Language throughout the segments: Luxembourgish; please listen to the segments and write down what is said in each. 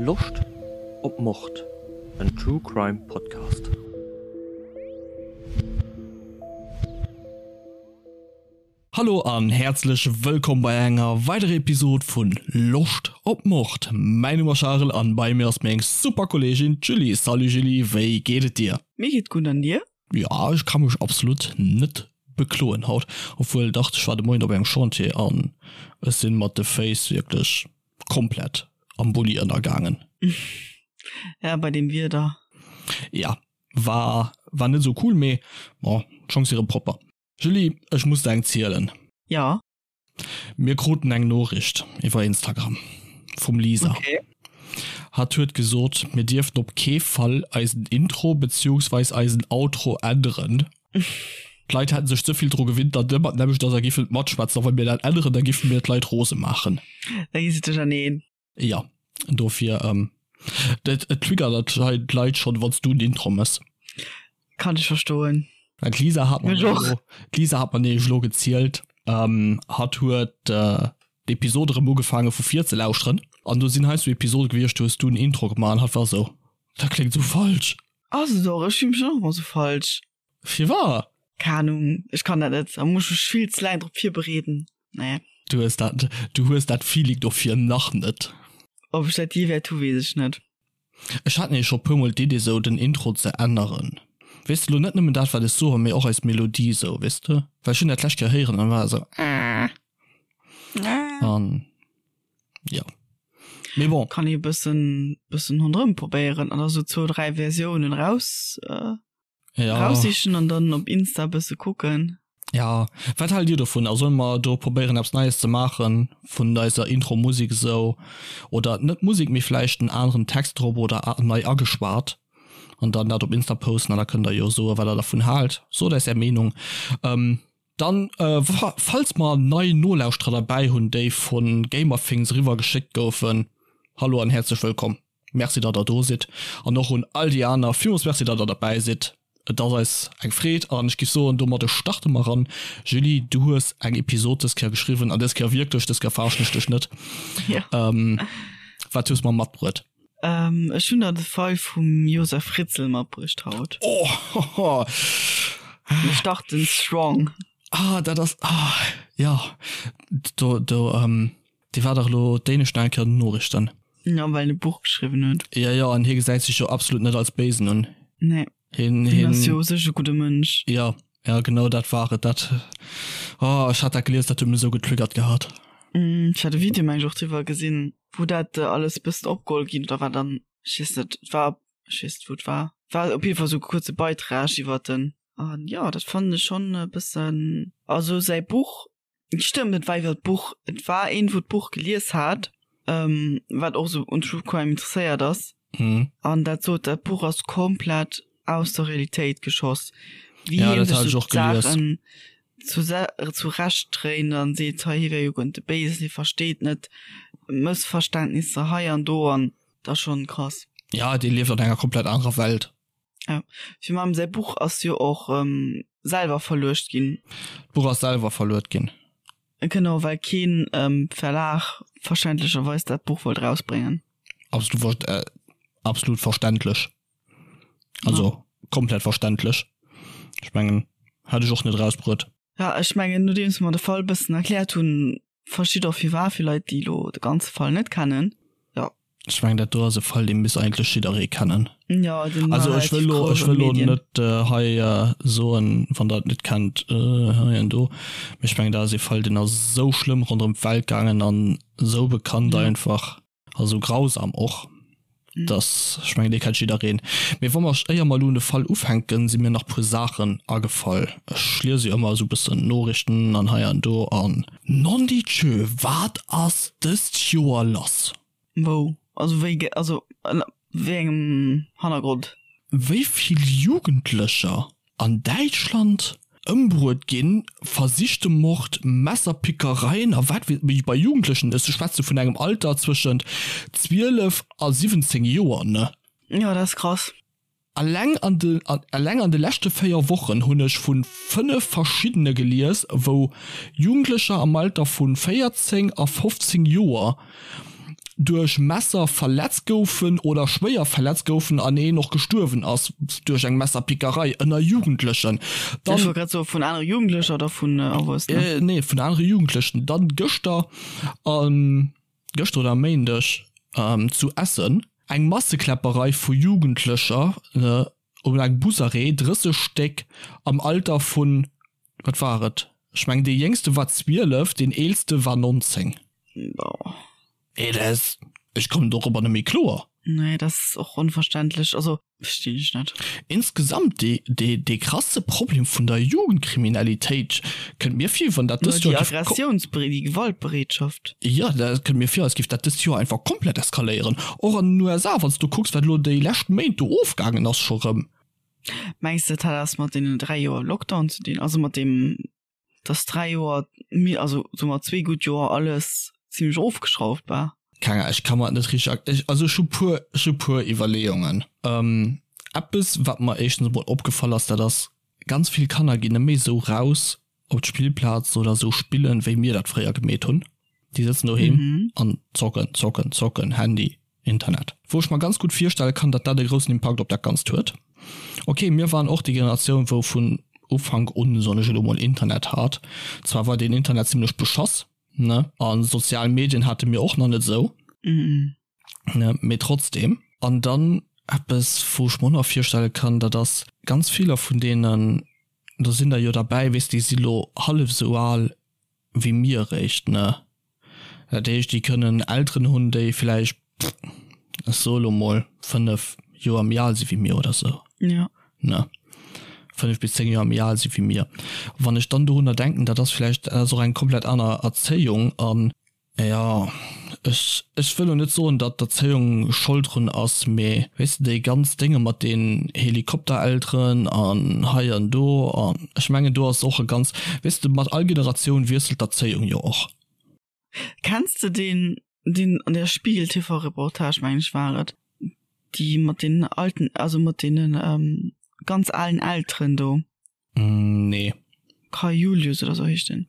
Loscht op Mord? En True Crime Podcast. Hallo an häerzlech wëllkomm bei enger weiderer Episode vun Loscht op Mord. Mäin Numm ass Charel an bei mir ass meng super Kolleegin d'Julie. Salut Julie, wéi geet et dir? Mir geet gutt an dir? Jo, ech ka mech absolut net bekloen haut. Obwuel dach, ech war de Moien op engem Chantier an ech sinn mat de Féiss wierklech komplett am Bulli ënnergaangen. Ja, bei deem Wieder. Ja, war war net esou cool, mee bon, d'Schong si rëm propper. Julie, ech muss der eng zielen. Ja. Mir kruten eng Noriicht iwwer Instagram vum Lisa. Okay. Hatt huet gesot, mir dierften op kee Fall eisen Intro beziehungsweis eisen Outro änneren. D'Leit hätten sech ze vill dru gewinnt, datt ëmmer d'nämmlecht ass a giffen et matschwätzen. A wa mir dat änneren, da giffe mir d'Leit rose maachen. Da gi se duercherneen. Jo, dofir, et triggert hei d'Leit schonn, wann s du en Intro mëss. Kann ech verstoen. Well d'Lisa hat mer Mech och. elo, d'Lisa hat mer nämlech elo gezielt, hatt huet d'Episode erëm ugefaange vu vir ze lauschteren an do sinn heiansdo Episode gewiescht, do hues du en Intro gemaach an hatt war esou, Dat kléngt esou falsch. Ass et och, ech fille mech och ëmmer esou falsch. Firwat? Keng Ahnung, ech kann dat net, da muss ech mech vill ze laang drop virbereeden. Nee. Du hues dat, du hues dat Feeling dofir nach net. Ob ech dat jee wäert hu weess ech net. Ech hat nämlech scho puer mol d'Idee sou den Intro ze änneren. Weess de lo net nëmmen dat wat ech soen, mee och eis Melodie sou, weess de? Well ech hunn dat d'lescht Kéier héieren an war esou ah. An jo. Mee bon. Kann ee bëssen bëssen ronderëm probéieren an da sou zwou 3 Versiounen raus ja. raussichen an dann op Insta bësse kucken. Ja, wat haalt dir dovun? Also solle mer do probéieren eppes Neies ze maachen vun eiser Intro-Musek esou oder net Musek, mee vläicht en aneren Text drop oder nei ageschwat an dann dat op Insta posten an da kënnt der jo soe wat der dervun haalt. Sot eis är Meenung. Ähm, dann äh, falls mer nei Nolauschterer derbäi hunn, déi vu Gamerthings eriwwer geschéckt goufen, hallo an häerzlech wëllkomm. Merci datt der do sidd an och un all déi aner villmools Merci datt der derbäi sidd. Et ass eis eng Freed an ech giff soen domadde starte mer eran. Julie du hues eng Episod dës Kéier geschriwwen an dës Kéier wierklech, dës Kéier verarschen ech dech net. Wat hues mer matbruet? Ech hunn der de Fall vum Josef Fritzl matbruecht haut. Oh! Mir starten strong. Ah dat ass, ah jo do do. Dee war dach elo d'éinescht nach eng Kéier an den Noriichten. Jo, well en e Buch geschriwwen huet. Jo, jo, an hie gesäit sech jo absolut net als Béisen un. Nee. Hien, Hien hien. ass jo u sech e gudde Mënsch. Jo, jo, genau dat war et. Dat, oh, ech hat dat gelies, dat huet mech esou getriggert gehat. Ech hat e Video, meng ech, och driwwer gesinn, wou dat alles e bëssen opgeholl ginn, oder war dann, ech weess net, et war, ech weess net, wou et war. War op jidde Fall esou e kuerze Beitrag iwwert en. An jo, dat fannen ech schonn e bëssen, also säi Buch Stëmmt, et war iwwer d'Buch. Et war een, wou d'Buch gelies hat, ähm, wat och sou un True Crime interesséiert ass. Mhm. An dat sot, dat Buch ass komplett aus der Realitéit geschoss. Wéi Ja, hien dat sech hat ech sou och gelies. d'Saachen zurecht dréint an seet, hei hie wär jo guer net de Béisen, hie versteet net Mëssverständnisser hei an do an dat ass schonn krass. Ja, dee lieft an enger komplett anerer Welt. Ja, fir mam säi Buch ass jo och ähm, selwer verluecht ginn. D'Buch ass selwer verluet ginn. Genau, well keen ähm, Verlag verständlecherweis dat Buch wollt rausbréngen. Absolut, äh, absolut verständlech. Also ja. komplett verständlech. Ech mengen, hätt ech och net rausbruet. Ja, ech mengen, nodeems mer de Fall bëssen erkläert hunn, verstitt och firwat fir Leit, déi elo de ganze Fall net kennen. Ja. Ech mengen dat do ass e Fall dee misst eigentlech jidderee kennen. Ja, den Also war ech wëll relativ lo, grouss ech an wëll de lo Medien. net äh, hei äh, soen, wann der et net kennt, äh, hei an do. Mee ech mengen dat ass e Fall deen ass esou schlëmm ronderëm d'Welt gaangen an esou bekannt Ja. einfach a sou grausam och, Mhm. dass ech mengen dee kennt jiddereen. Mee wa mer, éier mer elo un de Fall ufänken, si mir nach puer Saachen agefall. Ech liese jo ëmmer esou bëssen Noriichten an hei an do an. Nondidjö, wat ass dëst Joer lass? Wou? Also wéi, also ënner wéi engem Hannergrond? Wéi vill Jugendlecher an Däitschland ëmbruet ginn, versichte Mord, Messerpickereien a wat weess ech, bei Jugendlechen, ech schwätze vun engem Alter zwëschent 12 a 17 Joer, ne? Jo, dat ass krass. Alleng an de alleng an de leschte 4 Wochen hunn ech vu 5 verschiddene gelies, wou Jugendlecher am Alter vu 14 a 15 Joer. duerch Messer verletzt goufen oder schwéier verletzt goufen an een och gestuerwen ass duerch eng Messerpickerei ënner Jugendlechen. Dann, Ech wollt grad soen, vun anere Jugendlecher oder vun Erwuessenen? Nee, vun anere Jugendlechen. Dann gëschter, gëschter oder e Méindeg zu Essen eng Massekläpperei vu Jugendlecher um engem Busarrêt, 30 Stéck am Alter vun, wat war et, ech mengen dee jéngste war 12, deen eelste war 19. Boah. Ey, dat ass, ech kommen dorobber net méi kloer. Nee, dat ass och onverständlech, also verstinn ech net. Insgesamt dee, dee, dee krasse Problem vun der Jugendkriminalitéit kënnt mir vir, wann dat dëst Joer géif. Déi Aggressiounsbere-, déi Gewaltbereetschaft. Jo, dat kënnt mir vir, als géif dat dëst Joer einfach komplett eskaléieren. Och an den USA, wann s du kucks, wat elo déi lescht Méint do ofgaangen ass scho rëm. Mengs de, dat hat eppes mat deenen 3 Joer Lockdown ze dinn? Also mat deem, dass 3 Joer, also soe mer zwee gutt Joer alles zimlech ofgeschrauft war? Keng Ahnung, ech ka mer et net richteg erk-, ech, also ech hu puer, ech hu puer Iwwerleeungen. Eppes, wat mer éischtens emol opgefall ass, dat ass, ganz vill Kanner ginn net méi esou raus op d'Spillplaz oder esou spillen, wéi mir dat fréier gemeet hunn. Déi sëtzen doheem an zocken, zocken, zocken, Handy, Internet. Wou ech mer ganz gutt virstelle kann, datt dat e groussen Impakt op dat Ganzt huet. Ok, mir waren och déi Generatioun, wou vun Ufank un, soen ech elo mol, Internet hat. Zwar war deen Internet zimlech beschoss, ne, a sozial Medien hate mir och nach net esou, ne, mee trotzdem. An dann eppes, wou ech mer och nach virstelle kann, dat ass, ganz viller vun deenen, do sinn der jo derbäi, weess, déi si lo hallef esou al wéi mir eréischt, ne? Dat heescht, déi kënnen Elteren hunn, déi vläicht, ech soe lo mol, 5 Joer méi al si wéi mir oder sou. Ja. Ne? 5 bis 10 Joer méi al si wéi mir. Wann ech dann dorunner denken, dat ass vläicht, dat ass och eng komplett aner Erzéiung an Jo, ech, ech wëll lo net soen, datt d'Erzéiung Schold drun ass, mee weess de, déi ganz Dénge mat den Helikopterelteren an hei an do an ech mengen do ass och e ganz, weess de, mat all Generatioun wiesselt d'Erzéiung jo och. Kenns de deen, deen an der Spiegel TV Reportage, mengen ech war et, déi mat den alten, also mat deenen ganz alen Elteren do? Nee. Kai Julius oder sou heescht den.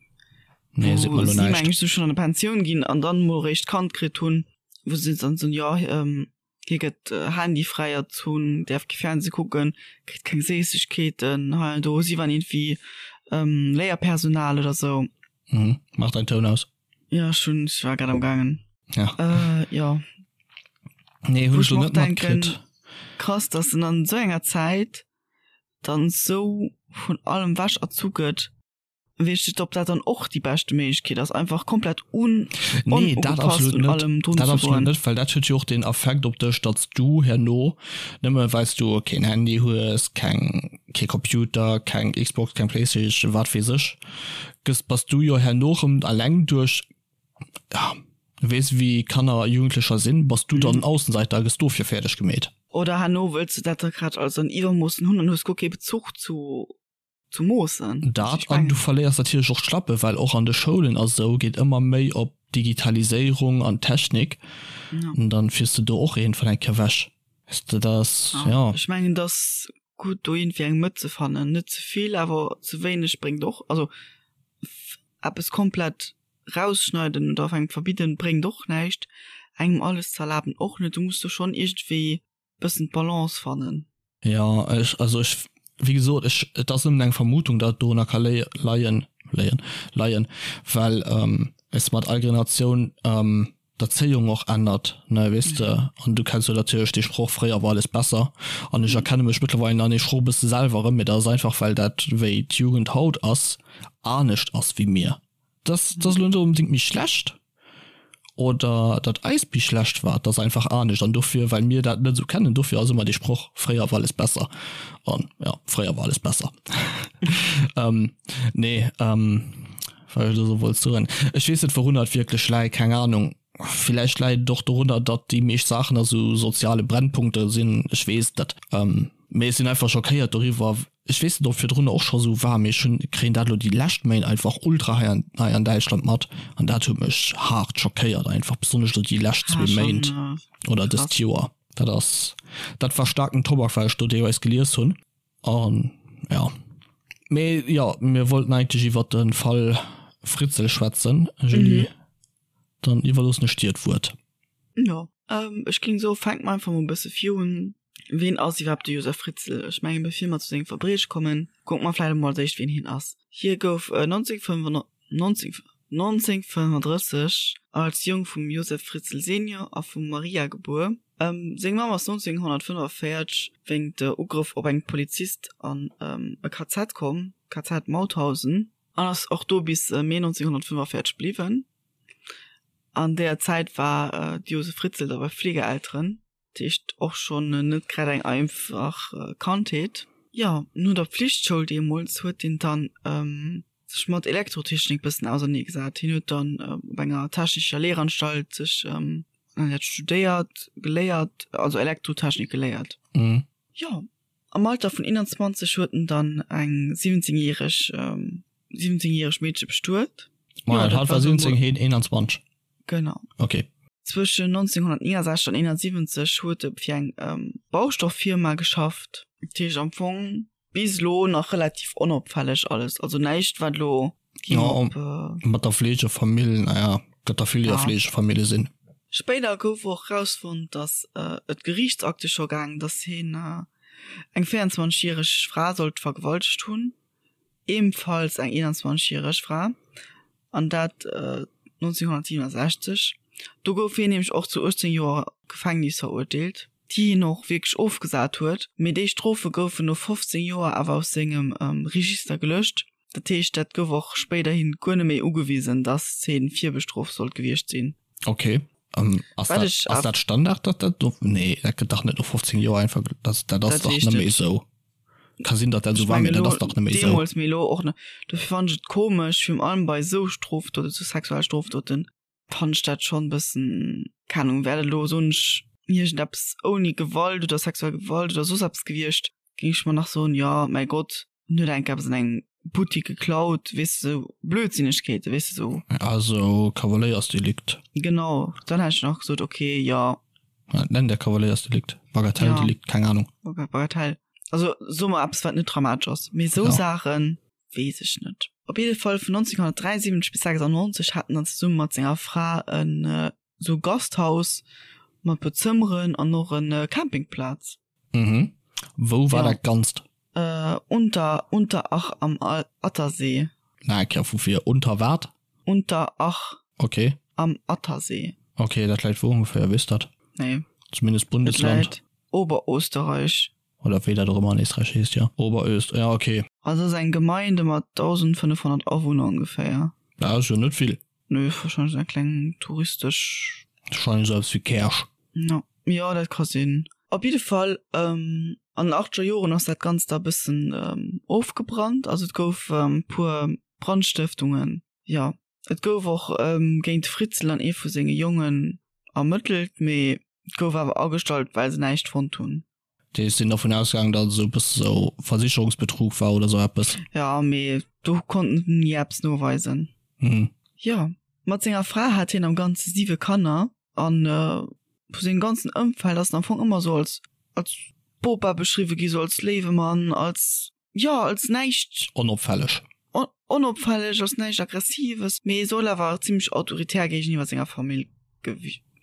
Nee, seet mer lo näischt. Meng ech sou schon an der Pensioun ginn an dann mol réischt Kand kritt hunn, wou se dann soen, jo hie gëtt handyfräi erzunn, däerf kee Fernseh kucken, kritt keng Séissegkeeten hei an do. Si waren iergendwéi Léierpersonal oder sou. Mhm. Mach dein Toun aus. Ja, ech hunn, ech war grad am gaangen. Ja. Äh, ja. Nee, hunn ech lo net matkritt. Krass, dass en an sou enger Zäit dann sou vun allem wech erzu gëtt, weess ech net, ob dat dann och déi beschte Méiglechkeet ass, einfach komplett un Nee, dat onugepasst absolut un net. allem drun Dat ze absolut goen. net, well dat huet jo och den Affekt op dech, datt s du herno, nëmme well s du keen Handy hues, keng, kee Computer, keng Xbox, keng Playstation, wat weess ech, gëss, bass du jo herno rëm alleng duerch ja, weess wéi Kanner a Jugendlecher sinn, bass du dann Aussenseiter a gëss dofir fäerdeg gemeet. Oder herno wëlls du dat da grad alles an Iwwermoossen hunn an hues guer kee Bezuch zu zu Moossen. Dat an du verléiers natierlech och d'Schlappe, well och an de Schoulen a sou geet ëmmer méi op Digitaliséierung an Technik, an dann fiers de do och iergendwann eng Kéier wech. Weess de, dat ass, jo. Ech mengen, et ass gutt do iergendwéi eng Mëtt ze fannen, net ze vill, awer ze wéineg bréngt och, also eppes komplett rausschneiden oder engem verbidden bréngt och näischt, engem alles ze erlaben och net, du muss do schonn iergendwéi bëssen d'Balance fannen. Jo, ech, also ech, wéi gesot, ech, et ass nëmmen eng Vermutung, datt et dorunner ka léie, leien, léien, leien, well weess de, mat all Generatioun d'Erzéiung och ännert, ne, weess de, an du kenns jo natierlech dee Sproch, fréier war alles besser, an ech erkenne mech mëttlerweil an deem Sproch e bësse selwer erëm, mee dat ass einfach, well dat, wéi d'Jugend haut ass, anescht ass wéi mir. Dass dass elo net onbedéngt méi schlecht oder datt eist méi schlecht war, et ass einfach anescht an dofir, well mir dat net esou kennen, dofir ass ëmmer dee Sproch, fréier war alles besser an jo, fréier war alles besser. Nee, wat ech elo sou wollt soen, ech weess net wourunner et wierklech läit, keng Ahnung, villäicht läit et och dorunner, datt déi meescht Saachen a sou soziale Brennpunkte sinn, ech weess et net, mee ech sinn einfach schockéiert doriwwer, Ech weess net ob virdrun och scho sou war, mee ech hunn kréien dat elo déi lescht Méint einfach ultra hei an hei an Däitschland mat an dat huet mech haart schockéiert einfach, besonnesch elo déi lescht zwee Méint oder dëst Joer. Dat ass dat war staarken Tobak wat ech do deelweis gelies hunn an jo. Mee jo, mir wollten eigentlech iwwert de Fall Fritzl schwätzen, Julie, dann iwwerloossen ech dir d'Wuert. Jo, ech géing soen, fänke mer einfach mol e bësse virun. Ween ass iwwerhaapt de Josef Fritzl? Ech mengen, bevir mer zu sengem Verbrieche kommen, kucke mer vläicht emol als éischt, ween hien ass. Hie gouf 1935 als Jong vum Josef Fritzl Senior a vum Maria gebuer. Seng Mamm ass 1945 wéingt Ugrëff op eng Polizist an e KZ komm, KZ Mauthausen, an ass och do bis Mee 1945 bliwwen. An deeër Zäit war de Josef Fritzl da bei Fleegeelteren. Dat heescht och schonn net grad eng einfach Kandheet. Jo, no der Pflichtschoul deemools huet hien dann sech mat Elektrotechnik bëssen ausernee gesat. Hien huet dann op enger technescher Lehranstalt sech dat studéiert, geléiert, also Elektrotechnik geléiert. Jo, am Alter vun 21 huet en dann eng 17 järeg 17 järeg Meedche bestuet. Moment, hatt war 17, hien 21? Genau. Okay. Zwëschen 1969 an 71 huet e fir eng Baustofffirma geschafft. Dat heescht am Fong bis elo nach relativ onopfälleg alles. Also näischt wat elo ging op. Mat der Fleegefamill, naja, gëtt der vill déi a Fleegefamille sinn. Spéider gouf och erausfonnt, datt et Geriichtsakte scho gaang, datt hien eng 24 järeg Fra sollt vergewaltegt hunn. ebenfalls eng 21 järeg Fra, an dat 1967. Do gouf hien nämlech och zu 18 Joer Gefängnis verurteelt, déi hien och wierklech ofgesat huet. Mee déi Strofe goufen no 15 Joer awer aus sengem Register gelöscht. Dat heescht, dat gouf och spéiderhin guer net méi ugewisen, datt hien virbestrooft sollt gewiescht sinn. Ok, ass dat, ass dat Standard, datt dat no, nee, dat gëtt dach net no 15 Joer einfach, dat, dat ass dach net méi esou. Ka sinn, datt dat esou war, mee dat ass dach net méi esou. Deemools, mee elo och net. Dofir fannen ech et komesch, virun allem bei esou Strofdoten, esou sexuell Strofdoten, fannen ech dat schonn e bëssen, keng Ahnung, wär dat elo, soen ech, iergendeppes ouni Gewalt oder sexuell Gewalt oder soss eppes gewiescht, géing ech mer nach soen, jo, mäi Gott, en huet enk eppes an engem Buttik geklaut, weess de, esou Blödsinnegkeeten, weess de, esou. Also Kavaléiersdelikt. Genau, dann hätt ech nach gesot, okay, jo. Dat nennt der Kavaléiersdelikt, Bagatelldelikt, keng Ahnung. Bagatell, also soe mer eppes, wat net dramatesch ass, mee esou Saachen, weess ech net. Op jidde Fall vun 1973 bis 96 hat en dann zesumme mat senger Fra en esou Gasthaus mat puer Zëmmeren an och en Campingplaz. Mhm. Wou war dat Ganzt? Unter Unterach am Attersee. Nach eng Kéier vu vir, Unter wat? Unterach Okay. am Attersee. Okay, dat läit wou ongeféier, weess dat? Nee. Zumindest Bundesland. Et läit Oberösterreich. Oder wéi dat och ëmmer an Éisträich heescht, jo. Oberöst, ja okay. Also ass eng Gemeinde mat 1.500 Awunner ongeféier. Dat ass jo net vill. Nö, wahrscheinlech eng kleng touristesch. Wahrscheinlech esou eppes wéi Käerch. No, jo, dat ka sinn. Op jidde Fall, an den achtzeger Joren ass dat Ganzt da bëssen ofgebrannt. Also et gouf puer Brandstëftungen, jo. Et gouf och géint de Fritzl an ee vu senge Jongen ermëttelt, mee et gouf awer agestallt, well se näischt fonnt hunn. Déi sinn dervun ausgaangen, datt et esou e bësse sou Versicherungsbetrug war oder sou eppes. Jo, mee do konnten se ni eppes noweisen. Mhm. Jo, mat senger Fra hat hien am Ganze siwe Kanner an vu sengem ganzen Ëmfeld ass en am Fong ëmmer sou als als Bopa beschriwwe gi, sou als léiwe Mann, als jo als näischt. Onopfälleg. Onopfälleg, als näischt Aggressives, mee soll awer zimmlech autoritär géigeniwwer senger Famill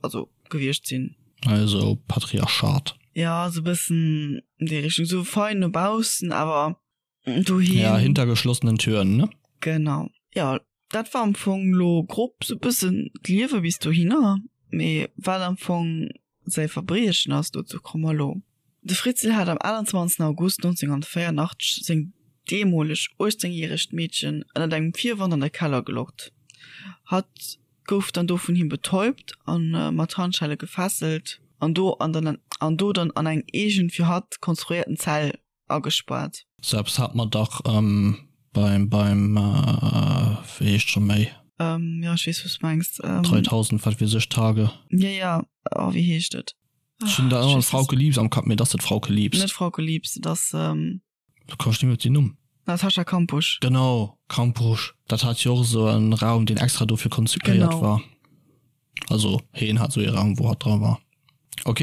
also gewiescht sinn. Also Patriarchat. Ja, sou bëssen an déi Richtung, sou fein no baussen, awer doheem. Ja, hinter geschlossenen Türen, ne? Genau. Ja, dat war am Fong lo grob sou bëssen d'Liewe bis dohinner, mee wat am Fong Säi Verbriechen ass, dozou komme mer elo. De Fritzl hat am 28 August 1984 seng deemoleg 18 järegt Meedchen ënnert engem Virwand an de Keller gelockt. Hatt gouf dann do vun him betäubt a mat Handschelle gefesselt an do an do dann an eng eegen fir hatt konstruéierten Zell agespaart. Sou eppes hat mer dach beim, beim, wéi heescht scho méi? Jo, ech weess, wou s de mengs. 3000, wat weess ech, Tage. Jo, jo, oh, wéi heescht et? Ech hunn da ëmmer Frauke Liebs am Kapp, mee et ass net Frauke Liebs. Net Frauke Liebs, et ass. Lo komm ech net méi op den Numm. Natascha Kampusch. Genau, Kampusch. Dat hat jo och esou en Raum, deen extra dofir konzipéiert war. Also heen hat esou ee Raum, wou hatt dra war. Ok.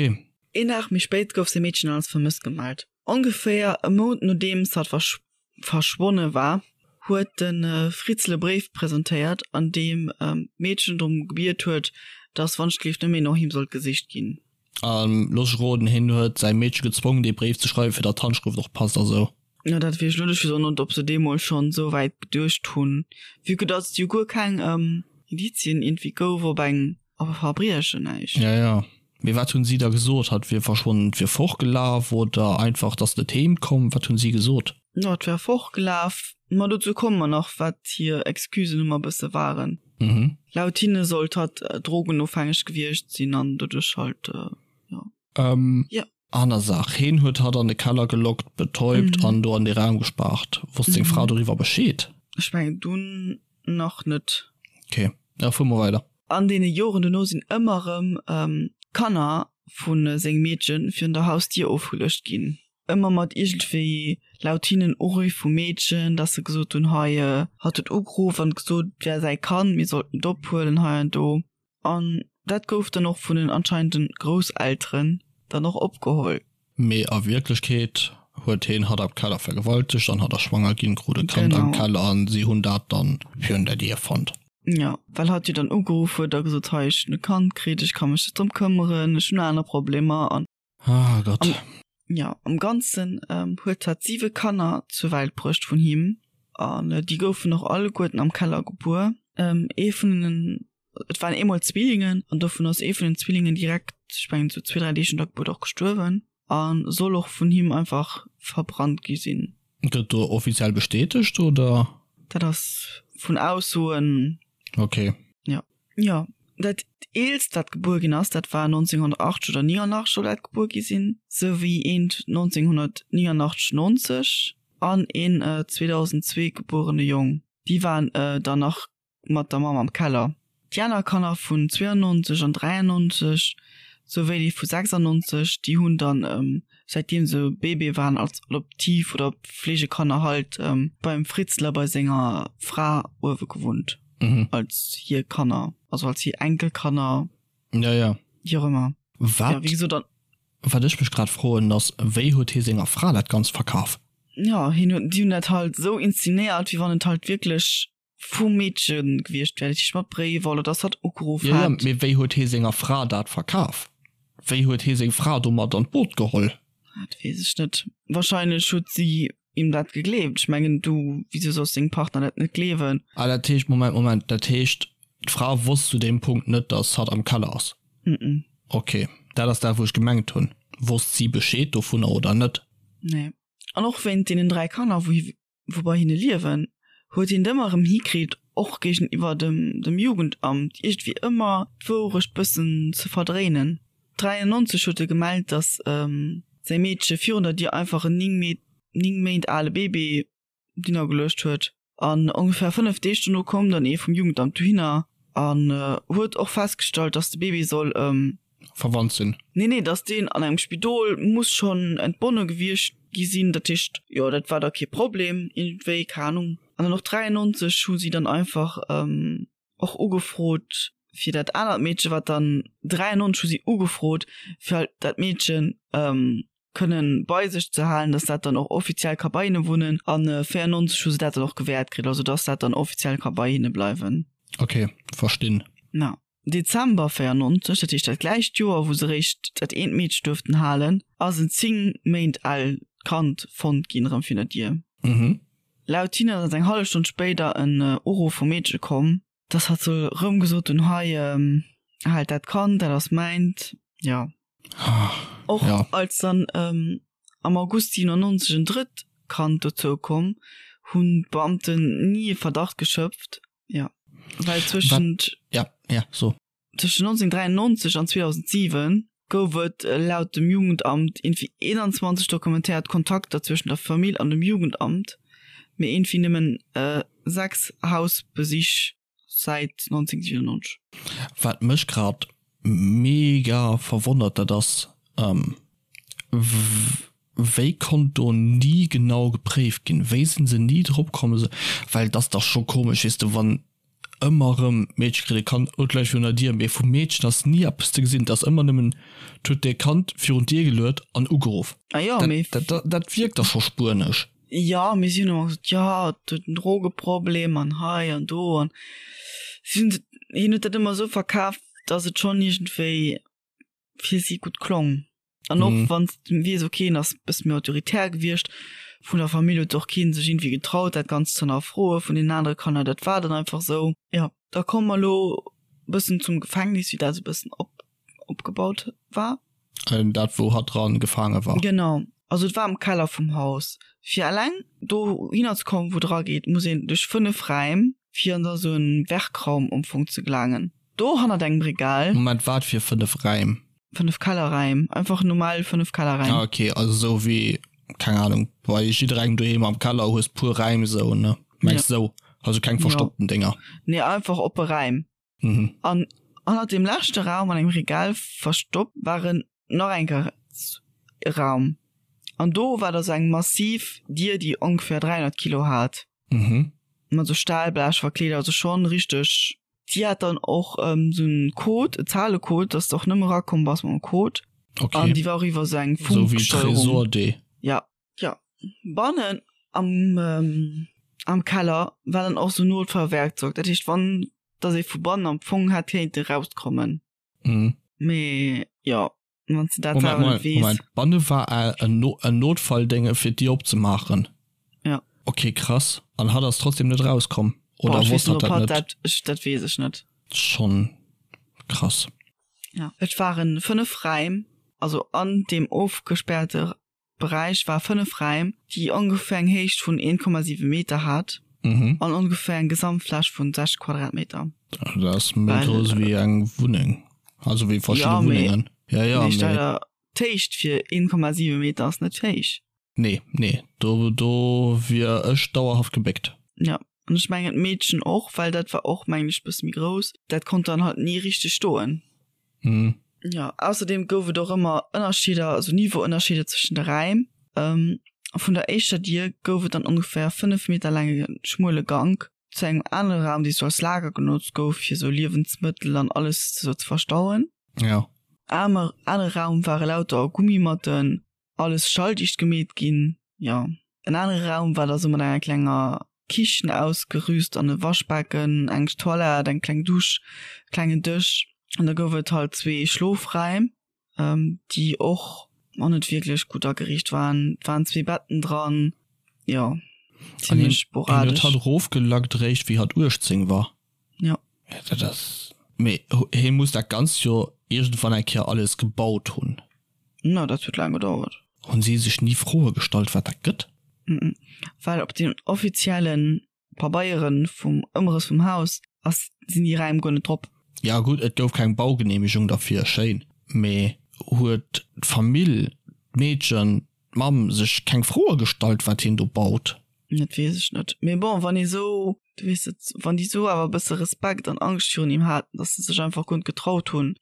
Een Dag méi spéit gouf säi Meedchen als vermësst gemellt. Ongeféier e Mount nodeems hatt verschwonne war, huet de Fritzl e Bréif presentéiert, an deem d'Meedchen drëm gebiet huet, datt wann-ech-gelift net méi no him sollt gesicht ginn. A looss ech roden, hien huet säi Meedche gezwongen, dee Bréif ze schreiwen, fir datt d'Handschrëft och passt a sou. Jo, dat weess ech lo net. Ech weess och net, ob se deemools schonn esou wäit geduecht hunn, vue que datt et jo guer keng Indizien iergendwéi gouf op eng, op e Verbriechen, näischt. Ja, ja. Mee wat hunn si da gesot? Hatt wier verschwonnen, et wier fortgelaf oder einfach, datt net heem komm? Wat hunn si gesot? Jo, et wär fortgelaf. Ma dozou komme mer nach, wat hir Excusen ëmmer e bësse waren. Laut hinne sollt hatt drogenofhängeg gewiescht sinn an doduerch halt, jo. Jo. Aner Saach, Heen huet hatt an de Keller gelockt, betäubt an do an dee Raum gespaart. Wosst seng Fra doriwwer Bescheed? Ech mengen dunn nach net. Ok, da fuere mer weider. An deene Joren dono sinn ëmmer erëm Kanner vu sengem Meedche virun der Hausdier ofgeluecht ginn. Ëmmer mat iergendwéi laut hinnen Uriff vum Meedchen, dass se gesot hunn, hei, hatt huet ugeruff an gesot, et wär säi Kand, mir sollten et ophuelen hei an do. An dat gouf dann och vun den anscheinenden Grousselteren dann och opgeholl. Mee a Wierklechkeet huet heen hatt am Keller vergewaltegt an hatt ass schwanger ginn, krut e Kand am Keller an si hunn dat dann virun der Dier fonnt. Jo, well hatt jo dann ugeruff huet a gesot, hei ech hunn e Kand kritt, ech ka mech net drëm këmmeren, ech hunn aner Problemer an. Ah Gott. Am, jo, am Ganzen huet hatt siwe Kanner zur Welt bruecht vun him an déi goufen och alleguerten am Keller gebuer. Ee vun den, et waren eemol Zwillingen an dovun ass ee vun den Zwillingen direkt, ech mengen sou zwee, dräi Deeg no der Gebuert och gestuerwen a soll och vun him einfach verbrannt gi sinn. Gëtt do offiziell bestätegt oder? Dat ass vun Aussoen. Okay. Jo. Jo, dat eelst wat gebuer ginn ass, dat war 1980 oder 89 soll dat gebuer gi sinn, sou wéi eent 1989, 90 an een 2002 gebuerene Jong. Déi waren dann nach mat der Mamm am Keller. Déi aner Kanner vun 92 an 93, sou wéi déi vu 96, déi hunn dann, säitdeem se Bébé waren, als Adoptiv oder Pflegekanner halt beim Fritzler bei senger Fra uewe gewunnt. Mhm. Als hir Kanner, also als hir Enkelkanner. Ja, ja. Wéi och ëmmer. Wat, ja, wéi gesot, dann. Wat ech mech grad froen ass, wéi huet hie senger Fra dat Ganzt verkaf? Ja, hien huet, déi hunn dat halt esou inszenéiert, wéi wann et halt wierklech vum Meedche gewiescht wär, dat heescht mat Bréiwer oder dass hatt ugeruff Ja, ja, hätt. mee wéi huet hie senger Fra dat verkaf? Wéi huet hie seng Fra domat an d'Boot geholl? Dat weess ech net. Wahrscheinlech huet si him dat gegleeft. Ech mengen, du, wisou solls dengem Partner dat net gleewen? Ah, dat heescht, Moment, Moment, dat heescht, d'Fra wosst zu deem Punkt net, dass hatt am Keller ass? Mm-mm. Ok, dat ass dat, wou ech gemengt hunn. Wosst si Bescheed dovunner oder net? Nee. An och wéint deenen 3 Kanner, wou hi, wou bei hinne liewen, huet hien et ëmmer erëm hikritt, och géigeniwwer dem, dem Jugendamt iergendwéi ëmmer d'Wourecht bëssen ze verdréinen. 93 huet e gemellt, datt säi Meedche virun der Dier einfach en 9 Méint ale Bébé dinner geluecht huet. An ongeféier 5 Deeg dono koum dann ee vum Jugendamt dohinner an huet och festgestallt, datt de Bébé soll. Verwannt sinn. Nee, nee, datt deen an engem Spidol muss schonn entbonne gewiescht gi sinn. Dat heescht, jo, dat war da kee Problem iergendwéi, keng Anung. An dann och 93 hu si dann einfach. Och ugefrot fir dat anert Meedchen, wat dann 93 hu si ugefrot fir halt dat Meedchen kënnen bei sech ze halen, dass dat dann och offiziell ka bei hinne wunnen an 94 hu se dat dann och gewäert kritt, also dass dat dann offiziell ka bei hinne bleiwen. Ok, verstinn. Na, Dezember 94, dat heescht dat gläicht Joer wou se réischt dat eent Meedche duerften halen, ass en 10 Méint al Kand fonnt ginn erëm virun der Dier. Mhm. Laut hinne ass eng hallef Stonn spéider en Uruff vum Meedche komm, dass hatt soll rëm gesot hunn, Hei, haalt dat Kand, dat ass mäint. Jo. Och als dann am August 97 en drëtt Kand dozou komm, hunn d'Beamten ni e Verdacht geschöpft. Jo, well zwëschent. Ja, ja, so. Tëschent 1993 an 2007 gouf et laut dem Jugendamt iergendwéi 21 dokumentéiert Kontakter zwëschen der Famill an dem Jugendamt, mee iergendwéi nëmmen 6 Hausbesich säit 1997. Wat mech grad mega verwonnert, dat ass, wéi konnt do ni genau gepréift ginn? Wéi sinn se ni drop komm? Well et ass dach scho komesch, weess de, wann Ëmmer erëm, d'Meedche kritt e Kand, oh, gläich virun der Dier, mee vum Meedchen ass ni eppes ze gesinn, et ass ëmmer nëmmen, 't huet e Kand virun d'Dier geluet an ugeruff. Ah jo, mee. Dat, dat, dat wierkt da scho spuenesch. Jo, mee si hunn ëmmer gesot, jo, et huet en Drogeproblem an hei an do an si hunn, hien huet dat ëmmer esou verkaf, datt et schonn iergendwéi fir si gutt klong. An och wann s de weess, ok, en ass e bësse méi autoritär gewiescht, vun der Famill huet och kee sech iergendwéi getraut, dat Ganzt ze hannerfroe vun deenen anere Kanner, dat war dann einfach esou. Jo, da komme mer elo e bëssen zum Gefängnis, wéi dat esou e bëssen op opgebaut war. Dat wou hatt dran gefaange war. Genau, also et war am Keller vum Haus. Fir eleng dohinner ze kommen, wou et erageet, muss een duerch 5 Räim, fir an da sou en Werkraum am Fong ze gelaangen. Do hannert engem Regal. Moment, wat fir 5 Räim? 5 Kellerräim, einfach normal 5 Kellerräim. Ah ok, also sou wéi, keng Ahnung, bei jidderengem doheem am Keller hues puer Räim sou, ne? Mengs sou, also keng verstoppten Dénger? Nee, einfach oppe Räim. Mhm. An hannert dem leschte Raum an engem Regal verstoppt waren nach eng Kéier e Raum. An do war da sou eng massiv Dier, déi ongeféier 300 Kilo hat. Mhm. Mat sou Stahlblech verkleet, also schonn richteg. Déi hat dann och sou en Code, e Zahlecode, dass de och nëmme erakomm bass mam Code. Okay. An déi war och iwwer sou eng Sou wéi Funksteuerung. Tresor D. Ja. Jo, bannen am am Keller war dann och sou Notfallwerkzeug, dat heescht wann dass ee vu bannen am Fong hätt kéinte rauskommen. Mhm. Mee jo, wann s de dat Moment, selwer net Moment, weess. Moment, banne war ä en No en Notfalldénge fir d'Dier opzemaachen? Ja. Okay, krass. An hatt ass trotzdem net rauskomm? Boah, Oder ech weess wosst net, hatt ob dat hatt net? dat, ech, dat weess ech net. Schonn krass. Ja, et waren 5 Räim, also an deem ofgespäerte Beräich war 5 Räim, déi ongeféier eng Héicht vun 1,7 Meter hat an ongeféier eng Gesamtfläch vun 60 Quadratmeter. Dat ass méi grouss wéi eng Wunneng, also wéi verschidde Wunnengen. Ja, mee d'Héicht fir 1,7 Meter ass net héich. Nee, nee, do do wier ech dauerhaft gebéckt. Ja, an ech mengen d'Meedchen och, well dat war och, mengen ech, bësse méi grouss. Dat konnt dann halt ni richteg stoen. Mhm. Ja, ausserdeem gouf et och ëmmer Ënnerscheeder, also Niveauënnerscheeder zwëschen de Räim. Vun der éischter Dier gouf et dann ongeféier 5 Meter laange schmuele Gank zu engem anere Raum, dee sou als Lager genotzt gouf, fir sou Liewensmëttel an alles sou ze verstauen. Ja. Am anere Raum ware lauter Gummimatten, alles schalldicht gemeet ginn. Jo, en anere Raum war da sou mat enger klenger Kichen ausgerüst an e Waschbecken, eng Toilette, eng kleng Dusch, e klengen Dësch. An da gouf et halt zwee Schlofräim, déi och och net wierklech gutt ageriicht waren. Et waren zwee Betten dran, jo, zimmlech sporadesch. An hien huet hatt erofgelackt eréischt wéi hatt 18 war. Jo. Dat ass, mee hie muss dat Ganzt jo iergendwann eng Kéier alles gebaut hunn. No, dat huet laang gedauert. Hunn si sech ni Froe gestallt, wat dat gëtt? Well op den offizielle Pabeiere vum Ëmrëss vum Haus ass, sinn déi Räim guer net drop. Ja gutt, et gouf keng Baugeneemegung derfir, schéin. Mee huet d'Famill, d'Meedchen, d'Mamm sech keng Froe gestallt, wat hien do baut? Dat weess ech net. Mee bon, wann ee sou, du weess et, wann déi sou awer e bësse Respekt an Angscht virun him haten, datt se sech einfach guer net getraut hunn,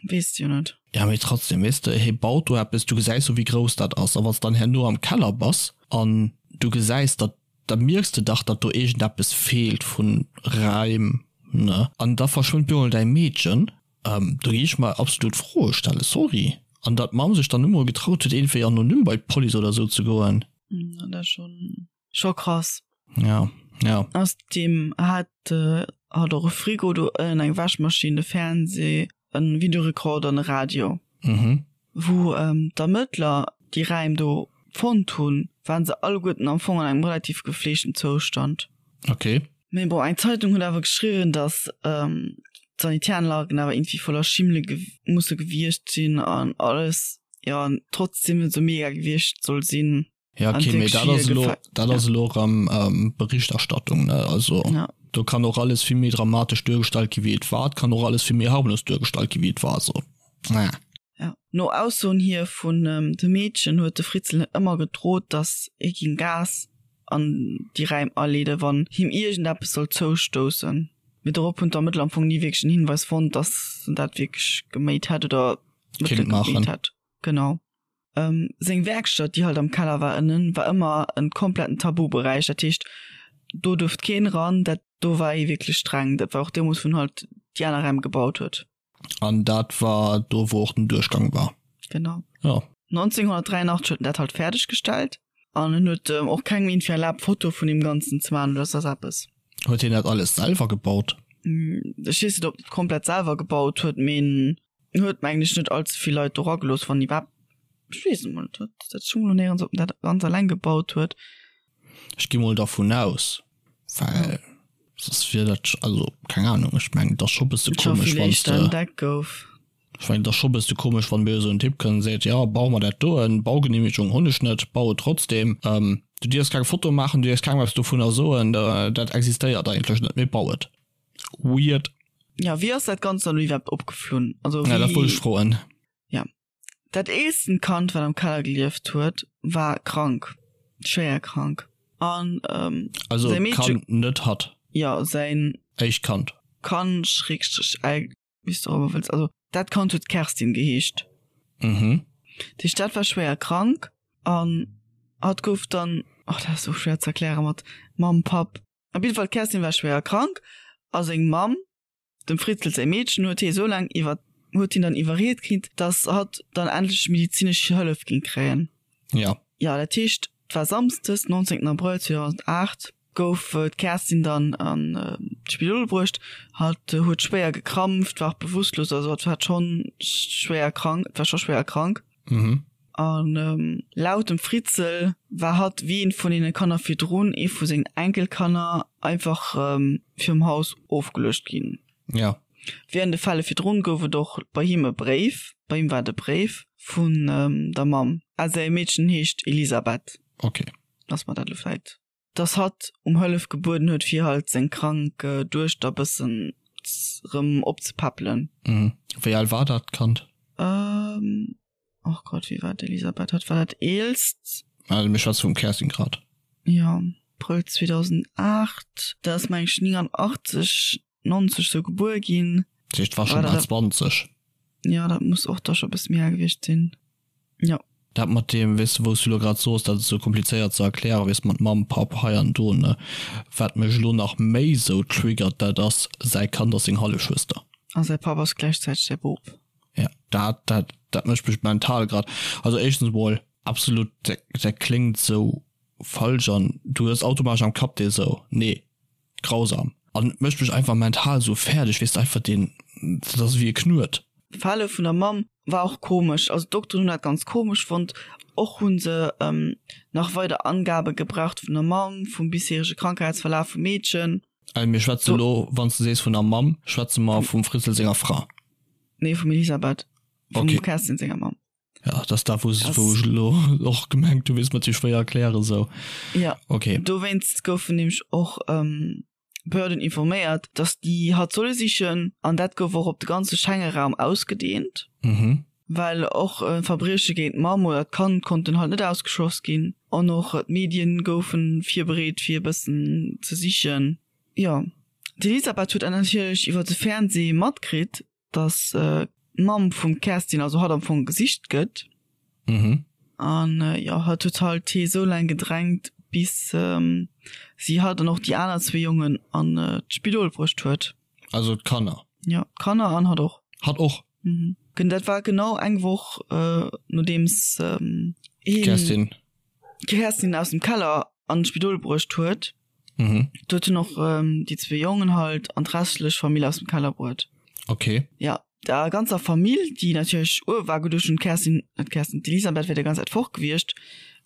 weess de jo net. Ja, mee trotzdem, weess de, hie baut do eppes, du gesäis jo, wéi grouss dat ass. A wann s de dann herno am Keller bass an du gesäis, datt, da mierks de dach, datt do iergendeppes feelt vu Raim, ne? An da verschwënnt bemol däi Meedchen. Do gi ech mer absolut Froe stellen, sorry. An datt d'Mamm sech dann net mol getraut huet, iergendwéi anonym bei d'Police oder esou ze goen. Dat ass schonn, scho krass. Ja, ja. Ausserdeem hat hatt och e Frigo do ënnen, eng Wäschmaschinn, e Fernseh, e Videorekorder an e Radio. Mhm. Wou d'Ermëttler déi Räim do fonnt hunn, waren se alleguerten am Fong an engem relativ gefleegten Zoustand. Okay. Mee bon, eng Zeitung huet awer geschriwwen, datt d'Sanitäranlagen awer iergendwéi voller Schimmele musse gewiescht sinn an alles, jo, an trotzdem net esou mega gewiescht soll sinn. Ja, okay, mee dat ass elo, dat ass elo erëm Berichterstattung, ne? Also do kann och alles vill méi dramatesch duergestallt gi wéi et war, et kann och alles vill méi harmlos duergestallt gi wéi et war, also naja. Ja, no Aussoen hier vun de Meedchen huet de Fritzl ëmmer gedrot, datt hie géing Gas an déi Räim aleeden, wann him iergendeppes sollt zoustoussen. Mee dorop hunn d'Ermëttler am Fong ni wierklech en Hinweis fonnt, datt en dat wierklech geméit hätt oder Mëttele geméit hätt. Genau. Seng Werkstatt, déi halt am Keller war ënnen, war ëmmer en kompletten Tabuberäich. Dat heescht, do duerft keen eran, dat do war ee wierklech streng. Dat war och deemools, wou en halt déi aner Räim gebaut huet. An dat war do, wou och den Duerchgang war? Genau. Jo. 1983 huet en dat halt fäerdeg gestallt. An en huet och kengem iergendwéi erlaabt, Fotoe vun deem Ganzen ze maachen oder soss eppes. Huet hien dat alles selwer gebaut? Ech weess net, ob en et komplett selwer gebaut huet, mee en huet, mengen ech, net all ze vill Leit do eragelooss, wann iwwerhaapt. Ech weess et emol net, dat stoung elo néierens, ob en dat ganz eleng gebaut huet. Ech gi mol dervun aus, well soss wier dat, also keng Ahnung, ech mengen, et ass scho bësse komesch, wann s de. Entdeckt gouf. Ech mengen, et ass scho bësse komesch, wann mir esou en Typ kënnt an seet, jo, bau mer dat doen, Baugenehmegung hunn ech net, bau et trotzdem. Du dierfs keng Foto maachen, du dierfs kengem eppes dovunner soen, dat existéiert eigentlech net, mee bau et. Weird. Jo, wéi ass dat Ganzt dann elo iwwerhaapt opgeflunn? Also wéi. Ja, dat wollt ech froen. Jo. Dat eelsten Kand, wat am Keller gelieft huet, war krank, schwéier krank. An also säi Meedche. Kand, net hatt. Jo, säin. Éischt Kand. Kand, Schrägstrich, El, wéi s de och ëmmer wëlls. Also dat Kand huet Kerstin geheescht. Mhm. Dat heescht, dat war schwéier krank an hatt gouf dann, oh, dat ass och schwéier ze erkläre mat Mamm, Papp. Op jidde Fall, d'Kerstin war schwéier krank a seng Mamm Dem Fritzel säi Meedchen huet hie soulaang iwwer huet hien dann iwwerriet kritt, dass hatt dann endlech medizinesch Hëllef géing kréien. Ja. Jo, dat heescht, et war Samsdes, 19 Abrëll 2008, gouf d'Kerstin dann an d'Spidol bruecht. Hatt huet schwéier gekrampft, war och bewusstlos, also hatt war schonn schwéier krank, war scho schwéier krank. Mhm. An laut dem Fritzel war hatt, wéi eent vun deene Kanner virdrun, ee vu sengen Enkelkanner, einfach virum Haus ofgeluecht ginn. Ja. Wéi an de Fälle virdrun gouf et och bei him e Bréif, bei him war et e Bréif vun der Mamm. A säi Meedchen heescht Elisabeth. Okay. Dass mer dat elo vläit. Dass hatt um Hëllef gebueden huet, fir halt seng krank Duechter bëssen rëm opzepäppelen. Mhm. Wéi al war dat Kand? Ähm, och Gott, wéi war d'Elisabeth? Hatt war dat eelst. Also mir schwätze vum Kerstin grad. Jo, Abrëll 2008. Dat ass meng ech 89, 90 sou gebuer ginn. Dat heescht, war schonn bal 20. Jo, dat muss och da scho bësse méi al gewiescht sinn. Jo. Dat mat deem, weess de, wou s du elo grad soos, dat ass esou komplizéiert ze erklären, weess de, mat Mamm, Papp, hei an do, ne. Wat mech elo nach méi esou triggert, dat ass, säi Kand ass seng Hallefschwëster. A säi Papp ass gläichzäiteg säi Bop. Ja, dat, dat, dat mécht mech mental grad, also éischtens emol, absolut, dat, dat kléngt esou falsch an du hues automatesch am Kapp dee esou, nee, Grausam. An et mécht mech einfach mental sou fäerdeg, weess de, einfach deen, dat ass ewéi e Knuet. D'Verhale vun der Mamm war och komesch, also d'Dokteren hunn dat ganz komesch fonnt. Och hu se nach weider Angabe gebraucht vun der Mamm, vum bisherege Krankheitsverlaf vum Meedchen. Also mir schwätze elo, wann s de sees vun der Mamm, schwätze mer vum Fritzel senger Fra? Nee, vum Elisabeth, vum Kerstin senger Mamm. Ja, das da wou wou ech elo och gemengt hu weess mat sou schwéier erklären sou. Ja okay. Dowéinst goufen nämlech och Behörden informéiert, datt déi hatt solle sichen an dat gouf och op de ganze Schengeraum ausgedeent. Mhm. Well och Verbrieche géint d'Mamm oder d'Kand konnten halt net ausgeschloss ginn an och d'Medien goufe virbereet fir e bëssen ze sichen. Jo, d'Elisabeth huet dat natierlech iwwer de Fernsee matkritt, dass d'Mamm vum Kerstin, also hatt am Fong gesicht gëtt. Mhm. An jo, hatt huet halt hee sou laang gedrängt, bis si hatt an och déi aner zwee Jongen an d'Spidol bruecht huet. Also d'Kanner? Jo, d'Kanner an hatt och. Hatt och? Mhm. Dat war genau eng Woch nodeems hien d'Kerstin d'Kerstin aus dem Keller an d'Spidol bruecht huet. Mhm. Do huet en och ähm, déi zwee Jongen halt an d'restlech Famill aus dem Keller bruet. Okay. Ja, der ganzer Famill, déi natierlech uewe war, geduecht hunn, d'Kerstin, net d'Kerstin, d'Elisabeth wär déi ganz Zäit fort gewiescht,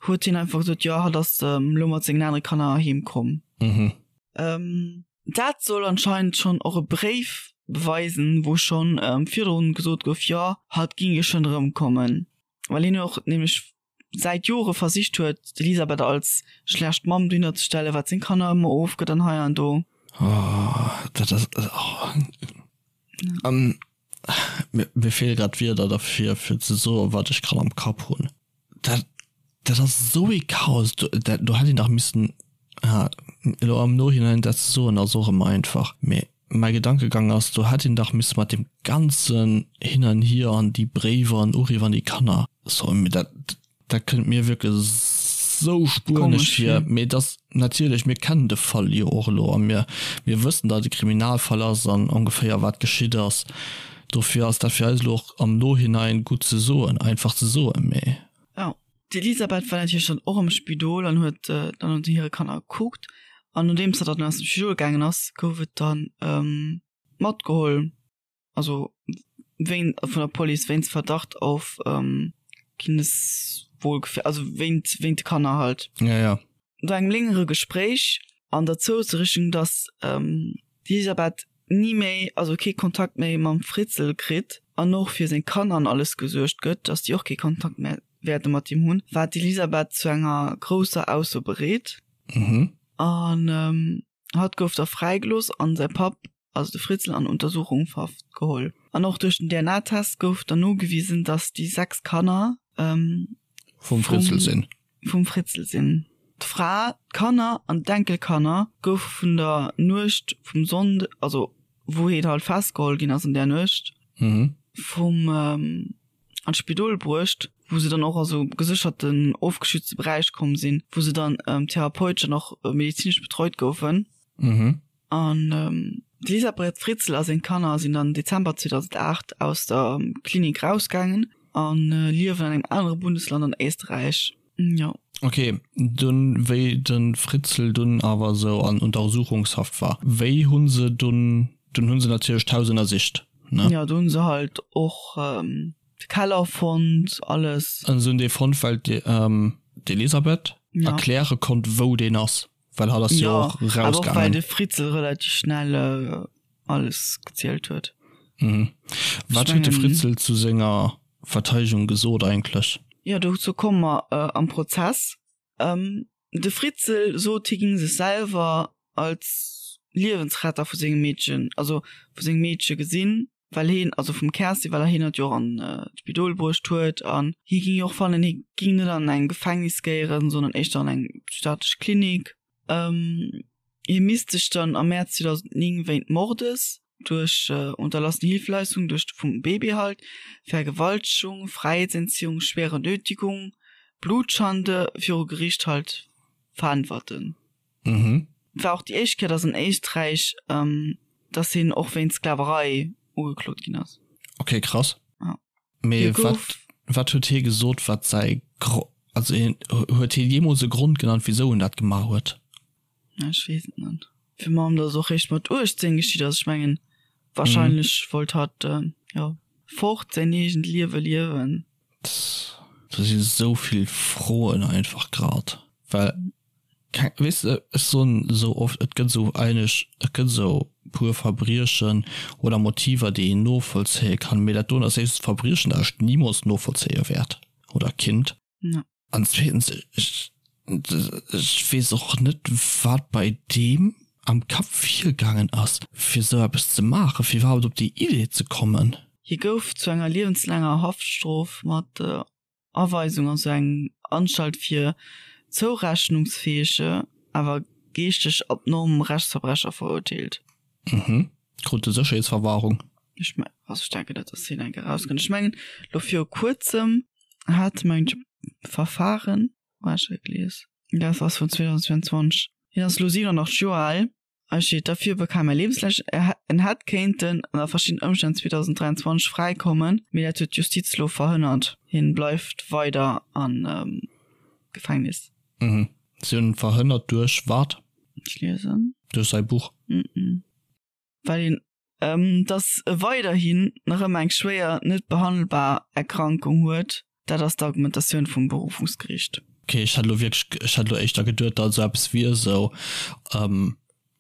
huet hien einfach gesot, jo, hatt ass ähm, elo mat sengen anere Kanner heem komm. Mhm. Ähm, dat soll anscheinend schonn och e Bréif beweisen, wou schonn ähm, virdrun gesot gouf, jo, hatt ging jo schonn erëmkommen. Well hien och nämlech säit Jore versicht huet, d'Elisabeth als schlecht Mamm dohinner ze stellen, wat seng Kanner ëmmer ofgëtt an hei an do. Oh, dat ass, oh. Um, mir, mir feele grad d'Wierder derfir, fir ze soen, wat ech grad am Kapp hunn. Dat, dat ass esou ee Chaos. Do, dat, do hätt een dach missen, ah, elo am Nohinein dat ze soen, ass och ëmmer einfach, mee Mäi Gedankegang ass, do hätt een dach misse mat deem ganzen Hin an Hier an déi Bréiwer an Uriff an déi Kanner, sorry, mee dat, dat kënnt mir wierklech esou spuenesch vir. Mee et ass natierlech, mir kennen de Fall jo och elo a mir, mir wëssen, datt et e Kriminalfall ass an ongeféier wat geschitt ass. Dofir ass dat fir eis elo och am Nohinein gutt ze soen, einfach ze soen, mee. Jo. D'Elisabeth war natierlech dann och am Spidol an huet dann no hire Kanner gekuckt. An nodeems hatt dann aus dem Spidol gaangen ass, gouf et dann matgeholl, also wéin vun der Police wéinst Verdacht auf Kindeswohlgefähr, also wéint wéint de Kanner halt. Ja, ja. No engem längere Gespréich an der Zousrichtung, datt d'Elisabeth ni méi, also kee Kontakt méi mam Fritzl kritt an och fir seng Kanner an alles gesuergt gëtt, dass déi och kee Kontakt méi wäerte mat him hunn, war d'Elisabeth zu enger grousser Ausso bereet. An hatt gouf da fräigelooss an säi Papp, also de Fritzl, an Untersuchungshaft geholl. An och duerch den DNA-Test gouf dann nogewisen, dass déi 6 Kanner vum Fritzl sinn. Vum Fritzl sinn. D'Fra, d'Kanner an d'Enkelkanner goufe vun der Nuecht vum Sonnd, also wou hien halt festgeholl ginn ass an där Nuecht, vum an d'Spidol bruecht, wou se dann och a sou gesécherten, ofgeschützte Beräich komm sinn, wou se dann therapeutesch an och medezinesch betreut goufen. An d'Elisabeth Fritzl a seng Kanner sinn dann Dezember 2008 aus der Klinik rausgaangen a liewen an engem anere Bundesland an Éisterräich. Jo. Ok, dunn wéi de Fritzl dunn awer esou an Untersuchungshaft war, wéi hu se dunn, dunn hu se natierlech d'Haus ënnersicht, ne? Jo, do hu se halt och de Keller fonnt, alles. An se hunn dee fonnt, well d'Elisabeth erkläre konnt, wou deen ass. Well hatt ass jo och rausgaangen. Awer och well de Fritzl relativ schnell alles gezielt huet. Mhm. Wat huet de Fritzl zu senger Verteidegung gesot eigentlech? Jo, dozou komme mer am Prozess. De Fritzl sot, hie géing sech selwer als Liewensretter vu sengem Meedchen, also vu sengem Meedche gesinn. well heen, also vum Kerstin, well heen hatt jo och an d'Spidol bruecht huet an hie ging jo och fannen, hie ging net an eng Gefängnis géieren, sondern éischter an eng psychiatresch Klinik. Hie misst sech dann am Mäerz 2009 wéint Mordes duerch unterlassene Hilfeleistung duerch vum Baby halt, Vergewaltegung, Fräiheetsentziehung, schwere Nötigung, Blutschande viru Gericht halt veräntwerten. Mhm. War och déi éischt Kéier, dass an Éisträich, dass hien och wéinst Sklaverei ugeklot ginn ass. Okay, krass. Ja. Mee wat, wat huet hie gesot, wat säi Gro-, also hien, huet hie jeemools e Grond genannt, wisou en dat gemaach huet? Ech weess et net. Fir mam, dass och réischt mat 18 geschitt ass. Ech mengen, wahrscheinlech wollt hatt, jo, fort, säin eegent Liewe liewen. Do si sou vill Froen einfach grad, well Keng, weess de, ech soen esou oft, et gëtt esou eigentlech, et gëtt esou puer Verbriechen oder Motiver, déi een novollzéie kann, mee dat doen ass éischtens Verbriechen, dat ech nimools novollzéie wäert oder kinnt. An zweetens, ech, ech weess och net, wat bei deem am Kapp virgaangen ass, fir esou eppes ze maachen, fir iwwerhaapt op déi Idee ze kommen. Hie gouf zu enger liewenslaanger Haftstrof mat Aweisung an sou eng Anstalt fir zourechnungsfähege, awer geeschteg abnorm Rechtsverbrecher verurteelt. Mhm. Krut e Sécherheetsverwahrung? Ech me also ech denken net, dass hien eng Kéier erauskënnt. Ech mengen lo viru kuerzem hat mengen ech e Verfahren, wou hat ech dat gelies? Dat ass vun 2022. Hien ass lo 87 Joer al. Hei steet, Dafür bekam er lebenslänglich. En hätt kéinten ënner verschiddenen Ëmstänn 2023 fräikommen, mee dat huet d'Justiz elo verhënnert. Hien bleift weider am Gefängnis. Mhm. Si hunn en verhënnert duerch wat? Ech liesen. Duerch säi Buch? Mhm. Well een dass e weiderhin nach ëmmer eng schwéier, net behandelbar Erkrankung huet. Dat ass d'Argumentatioun vum Berufungsgeriicht. Ok, ech hat elo wierklech, ech hat elo éischter geduet, datt esou eppes wier, esou